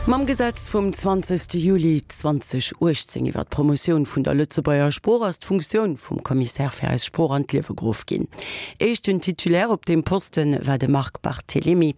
Mam Gesetz vum 20 Juli 2018 iwwer d'Promotioun vun der Lëtzebuerger Sprooch ass d'Funktioun vum Commissaire fir eis Sprooch an d'Liewe geruff ginn. Éischten Titulaire op deem Poste war de Marc Barthelemy,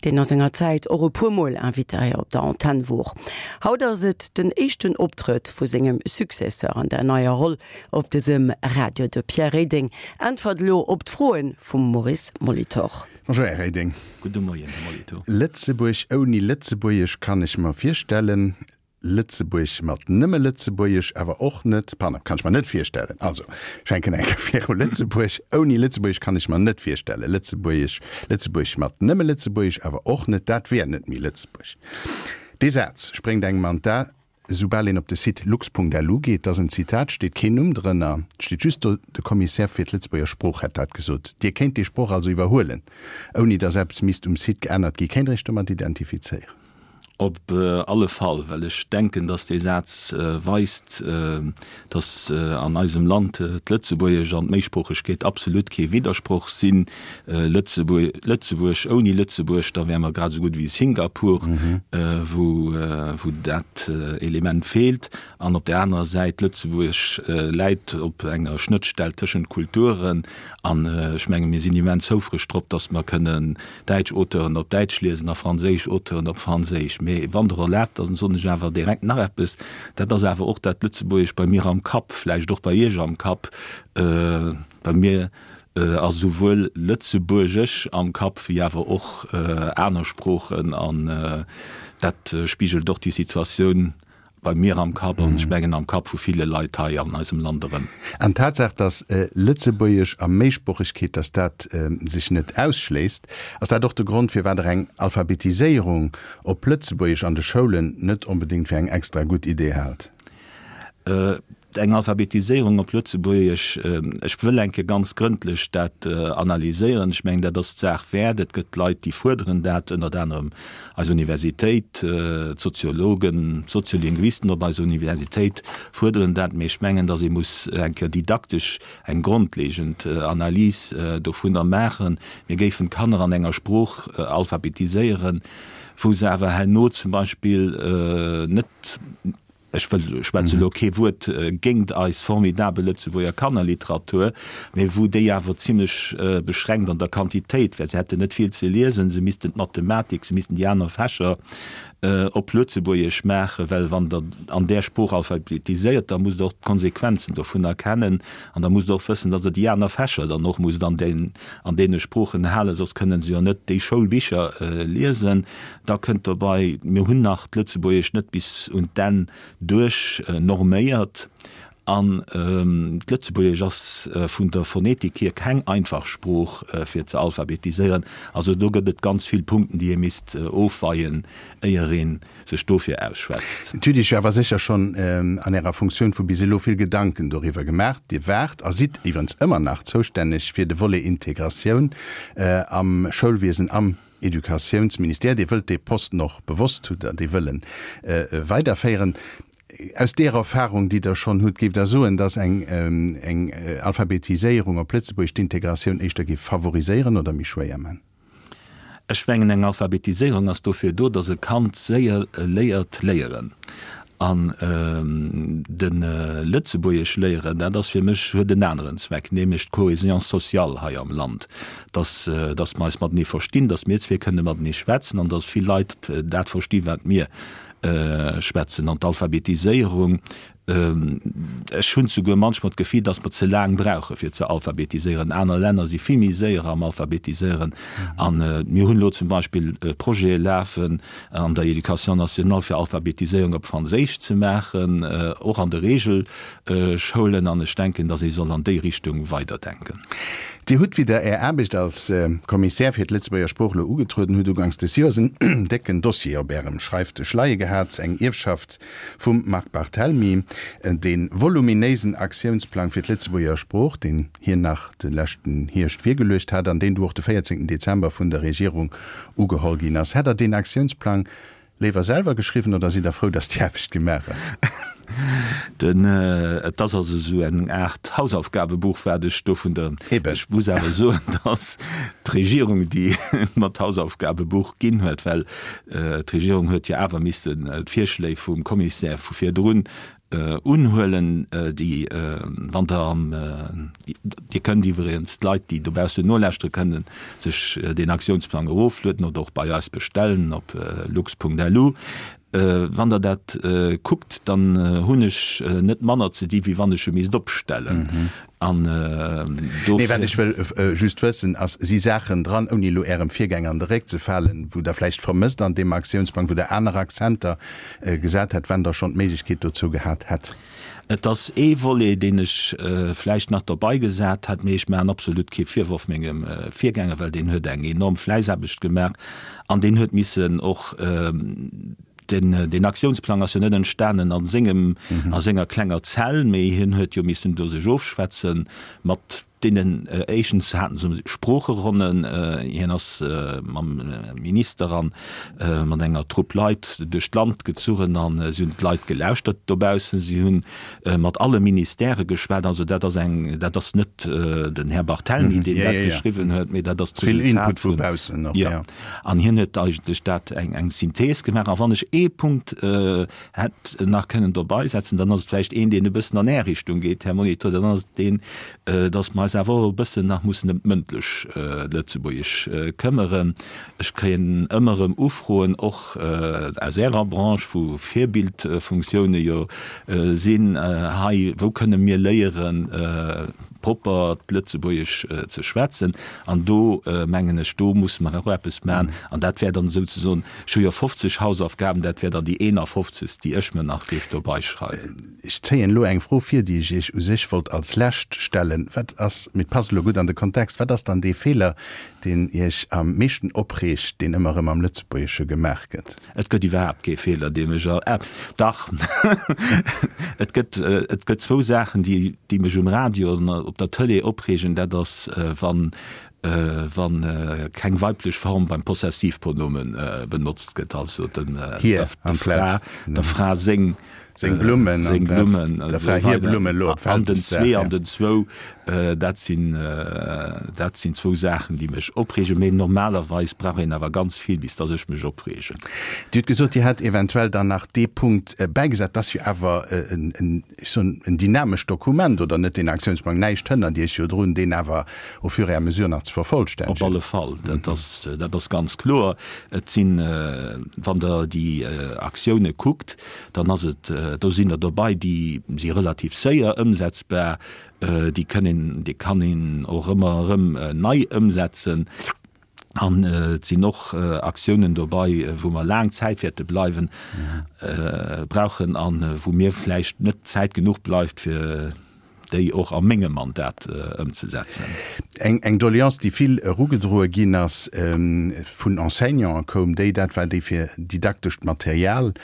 deen a senger Zäit och e puer Mol Invité hei op der Antenn wor. Haut ass et den éischten Optrëtt vu sengem Successeur an der neier Roll op dësem Radio. De Pierre Reding äntwert elo op d'Froe vum Maurice Molitor. Bonjour Här Reding. Gudde Moien, Här Molitor. Lëtzebuerg ouni Lëtzebuergesch kann ech mer virstellen, Lëtzebuerg mat nëmme Lëtzebuergesch awer och net, pardon, kann ech mer net virstellen. Also, ech fänken eng Kéier viru, Lëtzebuerg ouni Lëtzebuergesch kann ech mer net virstellen, Lëtzebuergesch, Lëtzebuerg mat nëmme Lëtzebuergesch awer och net, dat wär net méi Lëtzebuerg. Dee Saz spréngt engem an d'A. Soubal een op de Site lux.lu geet, dat ass en Zitat, steet keen Numm drënner, et steet just do, de Commissaire fir d'Lëtzebuerger Sprooch hätt dat gesot. Dir kéint dee Sproch also iwwerhuelen, ouni datt eppes misst um Site geännert gi. Kéint Der Iech domat identifizéieren? Op alle Fall, well ech denken, datt dee Saz weist, datt an eisem Land d'Lëtzebuergesch an d'Méisproochegkeet absolut kee Widdersproch sinn. Lëtzebuerg ouni Lëtzebuerg, da wäre mer grad esou gutt wéi Singapur, wou dat Element feelt. An op där anerer Säit, Lëtzebuerg läit op enger Schnëttstell tëschent Kulturen. An ech menge mir sinn immens houfreg drop, datt mer kënnen däitsch Auteuren op Däitsch liesen a franséisch Auteuren op Franséisch. Mee wann Der erlaabt, da soen ech awer direkt nach eppes, dat ass awer och dat Lëtzebuergesch bei mir am Kapp, vläicht och bei Iech am Kapp. Bei mir ass esouwuel Lëtzebuergesch am Kapp wéi awer och aner Sproochen an dat spigelt och déi Situatioun bei mir am Kapp an ech mengen am Kapp vu ville Leit hei an eisem Land erëm. An d'Tatsaach, datt Lëtzebuergesch a Méisproochegkeet, datt dat sech net ausschléisst, ass dat och de Grond, firwat Der eng Alphabetiséierung op Lëtzebuergesch an de Schoulen net onbedéngt fir eng extra gutt Idee haalt? Eng Alphabetiséierung op Lëtzebuergesch, ech wëll eng Kéier ganz grëndlech dat analyséieren. Ech mengen, dat ass d'Saach wäert. Et gëtt Leit, déi fuerderen dat, ënnert anerem eis Universitéit, d'Soziologen, d'Soziolinguisten op eiser Universitéit fuerderen dat. Mee ech mengen, datt ee muss eng Kéier didaktesch eng grondlegend Analys dovunner maachen. Mir géifen d'Kanner an enger Sprooch alphabetiséieren, wou se awer herno zum Beispill net, Ech wëll, schwätze elo kee Wuert géingt eis formidabel Lëtzebuerger Kannerliteratur, mä wou déi awer zimlech beschränkt an der Quantitéit wär. Se hätten net vill ze liesen, se missten d'Mathematik, se missten déi aner Fächer op Lëtzebuergesch maachen, well wann Der an där Sprooch alphabetiséiert, da musst Der och d'Konsequenzen dovunner kennen an da musst Der och wëssen, datt Der déi aner Fächer dann och musst an deene Sproochen halen, soss kënnen se jo net déi Schoulbicher liesen. Da kënnt dobei, mir hunn nach d'Lëtzebuergescht net bis un d'Enn duerch norméiert an d'Lëtzebuergesch ass vun der Phonetik hier keng einfach Sprooch fir ze alphabetiséieren. Also do gëtt et ganz vill Punkten, déi ee misst ofweien, éier ee sech dofir ausschwätzt. Dir hutt Iech awer sécher schonn an Ärer Funktioun vu bis elo vill Gedanken doriwwer gemaach. Dir waart a sidd iwwerens ëmmer nach zoustänneg fir de Volet Integratioun am Schoulwiesen, am Educatiounsministère, Dir wëllt dee Posten och bewosst, hutt Der dee Wëllen, weiderféieren. Aus deer Erfahrung, déi Der schonn hutt, géift Der soen, datt eng eng Alphabetiséierung op Lëtzebuergesch d'Integratioun éischter géif favoriséieren oder méi schwéier man? Ech mengen, eng Alphabetiséierung ass dofir do, datt e Kand séier léiert léieren. An de Lëtzebuergesch léieren, dat ass fir mech, huet en aneren Zweck, nämlech d'Cohésion sociale hei am Land, dass, dass mer eis matenee verstinn, dass mir zwee kënne matenee schwätzen an dass vill Leit dat versti wat mir schwätzen. An d'Alphabetiséierung, Ech hunn souguer manchmol d'Gefill, dass mer ze laang brauche fir ze alphabetiséieren. Aner Länner si vill méi séier am Alphabetiséieren. A mir hunn elo zum Beispill Projete lafen an der Éducation nationale, fir Alphabetiséierung op Franséisch ze maachen, och an de Regelschoulen. An ech denken, dass ee soll an déi Richtung weiderdenken. Dir hutt, wéi Der Är Aarbecht als Kommissär fir d'Lëtzebuerger Sprooch elo ugetrueden hutt, uganks des Joers en décken Dossier op Ärem Schreifdësch leie gehat, eng Ierfschaft Vum Marc Barthelmy, dee voluminéisen Aktiounsplang fir d'Lëtzebuerger Sprooch, deen hien nach de leschten Hierscht virgeluecht hat an deen du och de 14 Dezember vun der Regierung ugeholl ginn ass. Hätt Der deen Aktiounsplang. Léiwer selwer geschriwwen oder sidd der frou, dass déi Aarbecht gemaach ass? Den, et ass also esou eng Aart Hausaufgabebuch, wat ech do vun der, Eben. ech muss awer soen, dass d'Regierung déi mer d'Hausaufgabebuch ginn huet, well d'Regierung huet jo awer missen d'Virschléi vum Commissaire vu virdrun Unhuelen, déi, wann Der am, Dir kënnt iwwregens, d'Leit, déi dobaussen nolauschtere kënnen sech deen Aktiounsplang eroflueden oder och bei eis bestellen op lux.lu. Wann Der dat kuckt, dann hunn ech net manner ze di wéi wann ech e misst opstellen. An dofir. Nee, wat ech wëll just wëssen ass, si Saachen dran, ouni elo Ärem Virgänger an de Réck ze falen, wou Der vläicht vermësst an deem Aktiounsplang, wou Der aner Akzenter gesat hätt, wann Der schonn d'Méiglechkeet dozou gehat hätt? Et ass ee Volet, deen ech vläicht nach derbei gesat hätt, mee ech maachen absolut kee Virworf mengem Virgänger, well deen huet eng enorm Fläissaarbecht gemaach an deen huet missen och, Den, deen Aktiounsplang ass jo net entstanen a sengem, a senger klenger Zell, mee hien huet jo missen do sech ofschwätze mat deenen, éischtens haten se Sproocheronnen, hien ass mam Minister a mat enger Trupp Leit duerch d'Land gezuchen a si hunn d'Leit gelauschtert dobaussen, si hunn mat alle Ministèrë geschwat. Also dat ass eng, dat ass net den Här Barthelmy, deen dat geschriwwen huet, mee dat ass d'Resultat vun, jo. An hien huet eigentlech dat eng, eng Synthees gemaach. A wann ech ee Punkt hätt nach kënnen dobeisetzen, dann ass et vläicht een, deen e bëssen an Är Richtung geet, Här Molitor, dann ass et deen, dass mer eis awer och e bëssen nach mussen ëm d'mëndlech Lëtzebuergesch këmmere. Ech kréien ëmmer erëm Ufroen, och aus Ärer Branche, wou Virbildfunktioune jo sinn, hei, wou kënne mir léieren, propper d'Lëtzebuergesch ze schwätzen? An do, mengen ech, do musse mer och eppes maachen. An dat wär dann souzesoen, ech hu jo 50 Hausaufgaben, dat wär dann déi 51., déi ech mir nach géif dobeischreiwen. Ech zéien elo eng Fro vir, déi ech Iech u sech wollt als lescht stellen. Wat ass, mee et passt elo gutt an de Kontext, wat ass dann dee Feeler, deen Iech am meeschten opreegt, deen ëmmer erëm am Lëtzebuergesche gemaach gëtt? Et gëtt iwwerhaapt kee Feeler, dee mech, ah, dach, et gëtt, et gëtt zwou Saachen, déi, déi mech um Radio an op der Tëlee opreegen. Dat ass, wann, wa keng weiblech Form beim Possessivpronomen benotzt gëtt, also den, der Fra, der Fra seng. Seng Blummen, seng Blummen, der Fra hir Blummen elo op An den zwee an den zwou, dat sinn, dat sinn zwou Saachen, déi mech opreegen. Mee normalerweis brauch een awer ganz vill, bis dass ech mech opreegen. Dir hutt gesot, Dir hätt eventuell dann nach dee Punkt bäigesat. Dat ass jo awer en, ech soen, en dynamescht Dokument, oder net, deen Aktiounsplang? Näischt hënnert Iech jo drun, deen awer au fur et à mesure nach ze vervollstännegen. Op alle Fall, dat ass, dat ass ganz kloer. Et sinn, wann Der déi Aktioune kuckt, dann ass et, do sinn der dobei, déi si relativ séier ëmsetzbar, déi kënn een, déi kann een och ëmmer erëm nei ëmsetzen. An et sinn och Aktiounen dobei, wou mer laang Zäit wäerte bleiwen, brauchen a wou mir vläicht net Zäit genuch bleift, fir déi och a mengem Mandat ëmzesetzen. Eng Doleance, déi vill erugedroe ginn ass vun Enseignanten, koum déi, dat war déi fir didaktescht Material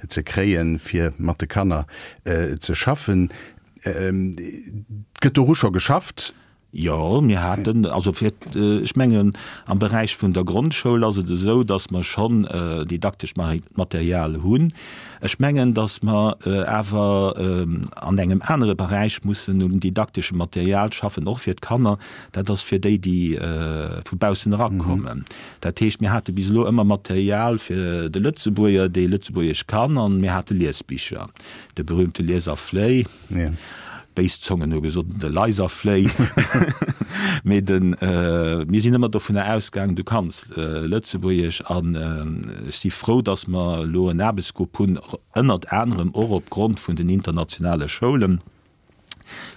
ze kréien, fir mat de Kanner ze schaffen. Gëtt doru scho geschafft? Jo, mir haten, also fir, ech mengen am Beräich vun der Grondschoul ass et esou, datt mer schonn didaktescht Material hunn. Ech mengen, datt mer awer an engem anere Beräich mussen un didakteschem Material schaffen, och fir d'Kanner, dat ass fir déi, déi vu baussen erakommen. Dat heescht, mir hate bis elo ëmmer Material fir de Lëtzebuerger, dee Lëtzebuergesch kann, an mir hate Liesbicher, de berühmte Lies a Fléi. Béis Zongen hu gesot, de Leiserfléi. Mee de, mir sinn ëmmer dovunner ausgaangen, du kanns Lëtzebuergesch. An ech si frou, datt mer elo en Aarbechtsgrupp hunn, ënnert anerem och opgrond vun den internationale Schoulen,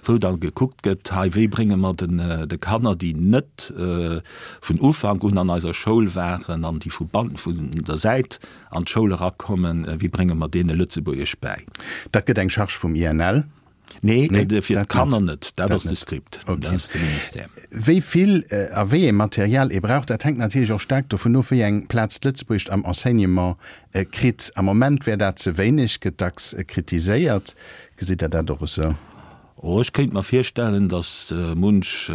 wou da gekuckt gëtt, hei, wéi brénge mer den de Kanner, déi net vun Ufank un an eiser Schoul waren an déi vu vun der Säit an d'Schoul erakommen, wéi brénge mer deene Lëtzebuergesch bäi? Dat gëtt eng Charge vum INL? Nee, fir d'Kanner net. Dat ass de Script, dat ass de Ministère. Wéi vill a wéi ee Material ee brauch, dat hänkt natierlech och staark dovun of, wéi eng Plaz d'Lëtzebuergescht am Enseignement kritt. Am Moment wär dat ze wéineg, gëtt dacks kritiséiert. Gesitt Der dat och esou? Oh, ech kéint mer virstellen, datt munch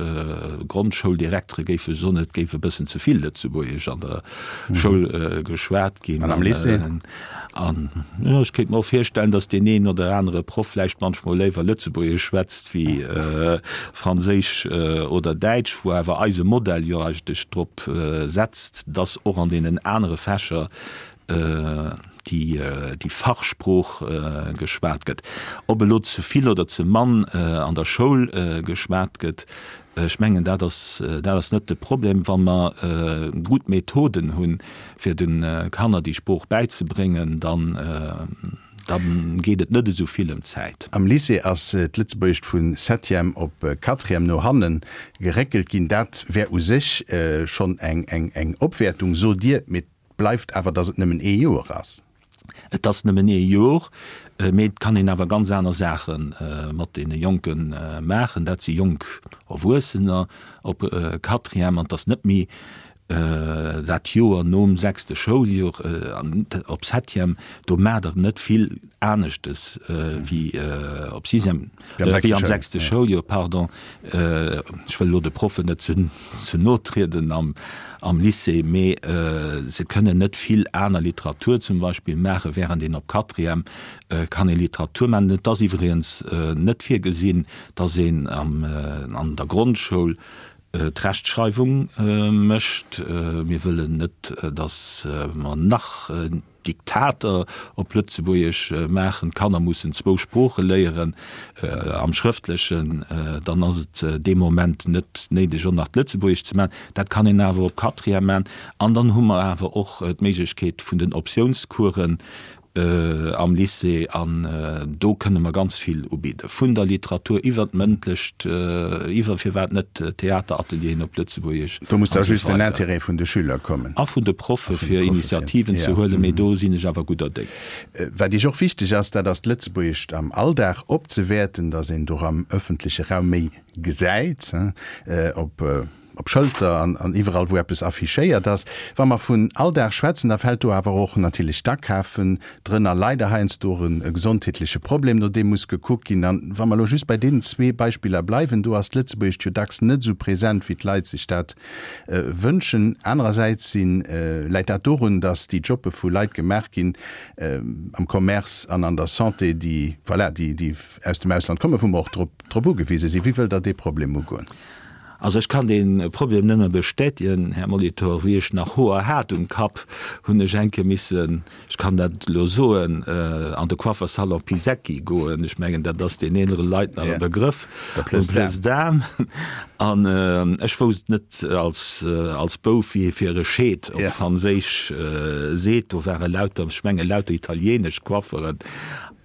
Grondschouldirektere géife soen, et géif e bëssen ze vill Lëtzebuergesch an der Schoul geschwat ginn. An am Lycée? An jo, ech kéint mer och virstellen, datt deen een oder anere Proff vläicht manchmol léiwer Lëtzebuergesch schwätzt wéi Franséisch oder Däitsch, wou awer eise Modell jo eigentlech drop setzt, datt och an deenen anere Fächer déi Fachsprooch geschwat gëtt. Ob elo ze vill oder ze mann an der Schoul geschwat gëtt, ech mengen, dat ass, dat ass net de Problem. Wa mer gutt Methoden hunn, fir de Kanner déi Sprooch bäizebréngen, dann, da geet et net esou vill ëm d'Zäit. Am Lycée ass d'Lëtzebuergescht vu Septième op Quatrième no hanne geréckelt ginn. Dat wär u sech schonn eng Opwäertung, sot Dir. Mee Bleift awer, dass et nëmmen ee Joer ass. Et ass nëmmen ee Jor, mee et kann een awer ganz aner Saache mat deene Jonke maachen. Dat si jonk Erwuessener op Quatrième an et ass net méi dat Joer nom sechste Schouljoer op Septième. Do maacht Der net vill aneschtes wéi op Sixième, wéi am sechste Schouljoer, pardon. Ech wëll elo de Proffen net ze no trieden am Lycée, mee se kënnen net vill aner Literatur zum Beispill maachen, während een op Quatrième kann ee Literatur maachen. Et ass iwwregens net virgesinn, datt een an der Grondschoul d'Rechtschreiwung mécht. Mir wëllen net, datt mer nach Diktater op Lëtzebuergesch maachen, d'Kanner mussen zwou Sprooche léieren am Schrëftlechen, dann ass et dee Moment net néideg och nach d'Lëtzebuergesch ze maachen. Dat kann een awer op Quatrième maachen. An dann hu mer awer och d'Méiglechkeet vun den Optiounscoursen am Lycée an do kënne mer ganz vill ubidden, vun der Literatur iwwer d'Mëndlecht, iwwer firwat net Theateratelieren op Lëtzebuergesch. Do muss da just den Intérêt vun de Schüler kommen. A vun de Proffe fir Initiativen ze huelen, mee do sinn ech awer gudder Déng. Wat Iech och wichteg ass, dat ass d'Lëtzebuergescht am Alldag opzewäerten, datt een do am ëffentleche Raum méi gesäit, op op Schëlter an an iwwerall wou eppes affichéiert ass. Wa mer vun Alldag schwätzen, da fält do awer och natierlech d'Akafen drënner, leider heiansdo och e gesondheetleche Problem, no deem muss gekuckt ginn. An wa mer elo just bei deenen zwee Beispiller bleiwen, do ass d'Lëtzebuergescht jo dacks net esou present, wéi d'Leit sech dat wënschen. Anerersäits si läit dat dorun, datt déi Jobbe vu Leit gemaach ginn am Commerce an an der Santé, déi, voilà, déi, déi aus dem Ausland kommen, wou mer och drop, drop ugewise sinn. Wéi wëllt Der dee Problem ugoen? Also ech kann dee Problem nëmme bestätigen, Här Molitor. Wéi ech nach Hoer hat um Kapp, hunn ech eng Kéier missen, ech kann dat elo soen, an de Coiffersalon Pisecki goen. Ech mengen, dat ass den eelere Leit nach e Begrëff, um Place d'Armes. An ech wousst net als, als Bouf, wéi ee fir e Scheet op Franséisch seet. Do ware lauter, ech menge lauter italienesch Coifferen.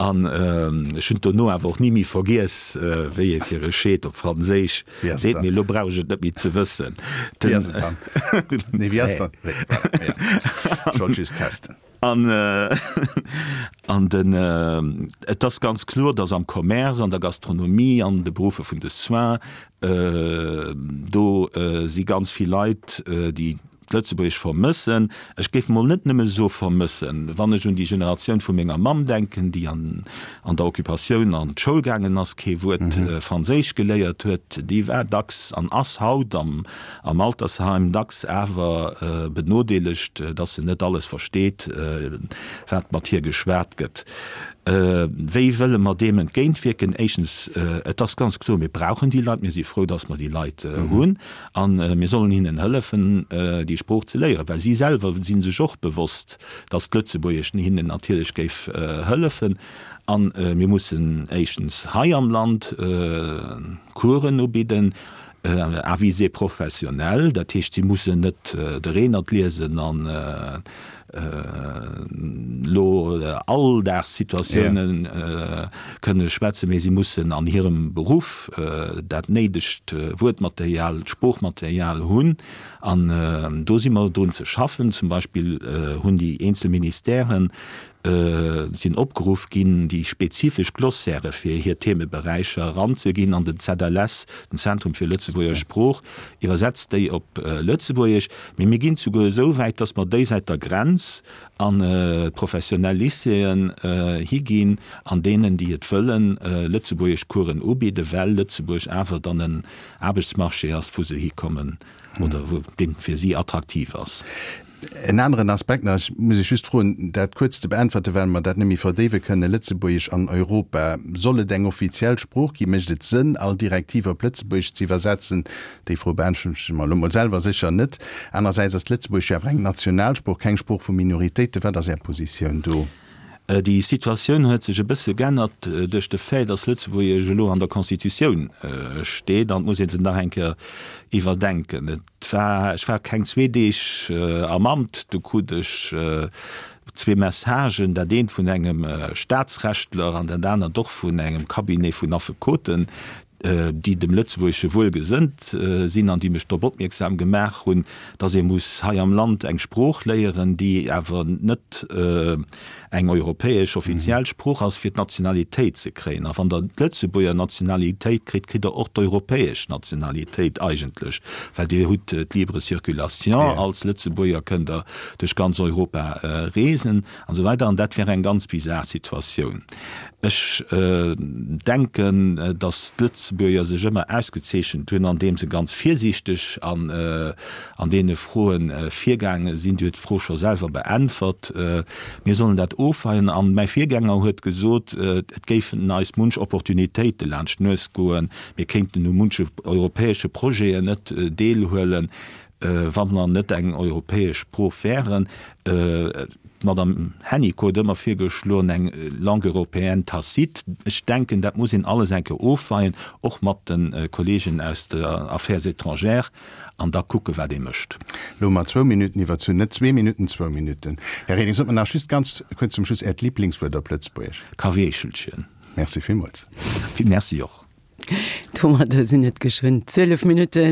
An ech hunn et dono awer och ni méi vergiess, wéi ee fir e Scheet op Franséisch seet. Mee elo brauch ech et net méi ze wëssen. Wéi ass et dann? Nee, wéi ass dann? Voilà, ja. Ech wollt just testen. An, an den, et ass ganz kloer, dass am Commerce, an der Gastronomie, an de Beruffer vun de Soins, do si ganz vill Leit, déi d'Lëtzebuergesch vermëssen. Ech géif mol net nëmme soe vermëssen. Wann ech un déi Generatioun vu menger Mamm denken, déi an an der Occupatioun an d'Schoul gaangen ass, kee Wuert Franséisch geléiert huet, déi war dacks an ass haut am am Altersheim dacks awer benodeelegt, dass se net alles versteet, wat mat hir geschwat gëtt. Wéi wëlle mer deem entgéintwierken? Éischtens, et ass ganz kloer, mir brauchen déi Leit, mir si frou, dass mer déi Leit hunn. A mir sollen hinnen hëllefen, déi Sprooch ze léieren, well si selwer si sech och bewosst, datt d'Lëtzebuergesch hinnen natierlech géif hëllefen. A mir mussen éischtens hei am Land Coursen ubidden, à visée professionnelle, dat heescht, si mussen net de Reenert liesen an elo Alldagssituatioune kënne schwätzen, mee si mussen an hirem Beruff dat néidegt Wuertmaterial, d'Sproochmaterial hunn. An do si mer drun ze schaffen. Zum Beispill hunn déi eenzel Ministèren. Sinn opgeruff ginn, déi spezifesch Glossairë fir hir Themeberäicher eranzeginn an den ZLS, den Zentrum fir Lëtzebuerger Sprooch, iwwersetzt déi op Lëtzebuergesch. Mee mir ginn souguer esou wäit, dass mer déi säit der Grenz an d'professionell Lycéeën higinn, an deenen, déi et wëllen, Lëtzebuergeschcoursen ubidden, well Lëtzebuerg awer dann en Aarbechtsmarché ass, wou se hikommen oder wou dee fir si attraktiv ass. En aneren Aspekt nach, ech muss Iech just froen, dat kuerz ze beäntwerte well mer dat net méi verdéiwe kënnen, Lëtzebuergesch an Europa, soll et eng offiziell Sprooch ginn? Mécht et Sënn, all Direktiv op Lëtzebuergesch ze iwwersetzen? Déi Fro beäntweren ech mer elo mol selwer sécher net. Anerersäits ass d'Lëtzebuergesch jo awer eng Nationalsprooch, keng Sprooch vu Minoritéiten. Wat ass Är Positioun do? Déi Situatioun huet sech e bësse g'ännert duerch de Fait, dass Lëtzebuergesch elo an der Constitutioun steet an et muss ee se nach eng Kéier iwwerdenken. Et war, ech war keng zwee Deeg am Amt, du krut ech zwee Messagen, dat eent vun engem Staatsrechtler an dat anert och vun engem Cabinet vun Affekoten, déi dem Lëtzebuergesche wuelgesënnt sinn an déi mech drop opmierksam gemaach hunn, datt ee muss hei am Land eng Sprooch léieren, déi awer net eng europäesch offiziell Sprooch ass, fir d'Nationalitéit ze kréien. A wann Der d'Lëtzebuerger Nationalitéit kritt, kritt Der och d'europäesch Nationalitéit eigentlech, well Dir hutt d'libre circulation, als Lëtzebuerger kënnt Der duerch ganz Europa reesen an esou weider. An dat wär eng ganz bizar Situatioun. Ech denken, datt d'Lëtzebuerger sech ëmmer ausgezeechent hunn, andeem se ganz virsiichteg an an deene Froe virgaange sinn. Dir hutt d'Fro scho selwer beäntwert. Mir sollen dat ofweien. An mäi Virgänger huet gesot, et géifen eis munch Opportunitéite laanscht d'Nues goen, mir kéinten u munche europäesche Projeten net deelhuelen, wa mer net eng europäesch Sprooch wären. D'Madame Hennicot huet ëmmer virgeschloen, eng Langue européenne tacite. Ech denken, dat muss een alles eng Kéier ofweien, och mat de Kollegen aus der Affaires étrangères, an da kucken, wat ee mécht. Elo hu mer zwou Minutten iwwerzunn, net zwee Minutten, zwou Minutten. Här Reding, sot mer nach just ganz kuerz zum Schluss Äert Liblingswuert op Lëtzebuergesch. Kaweechelchen. Merci villmools. Merci och. Domadder sinn et geschwënn 12 Minutte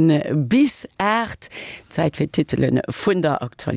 bis 8. Zäit fir d'Titele vun der Aktualitéit.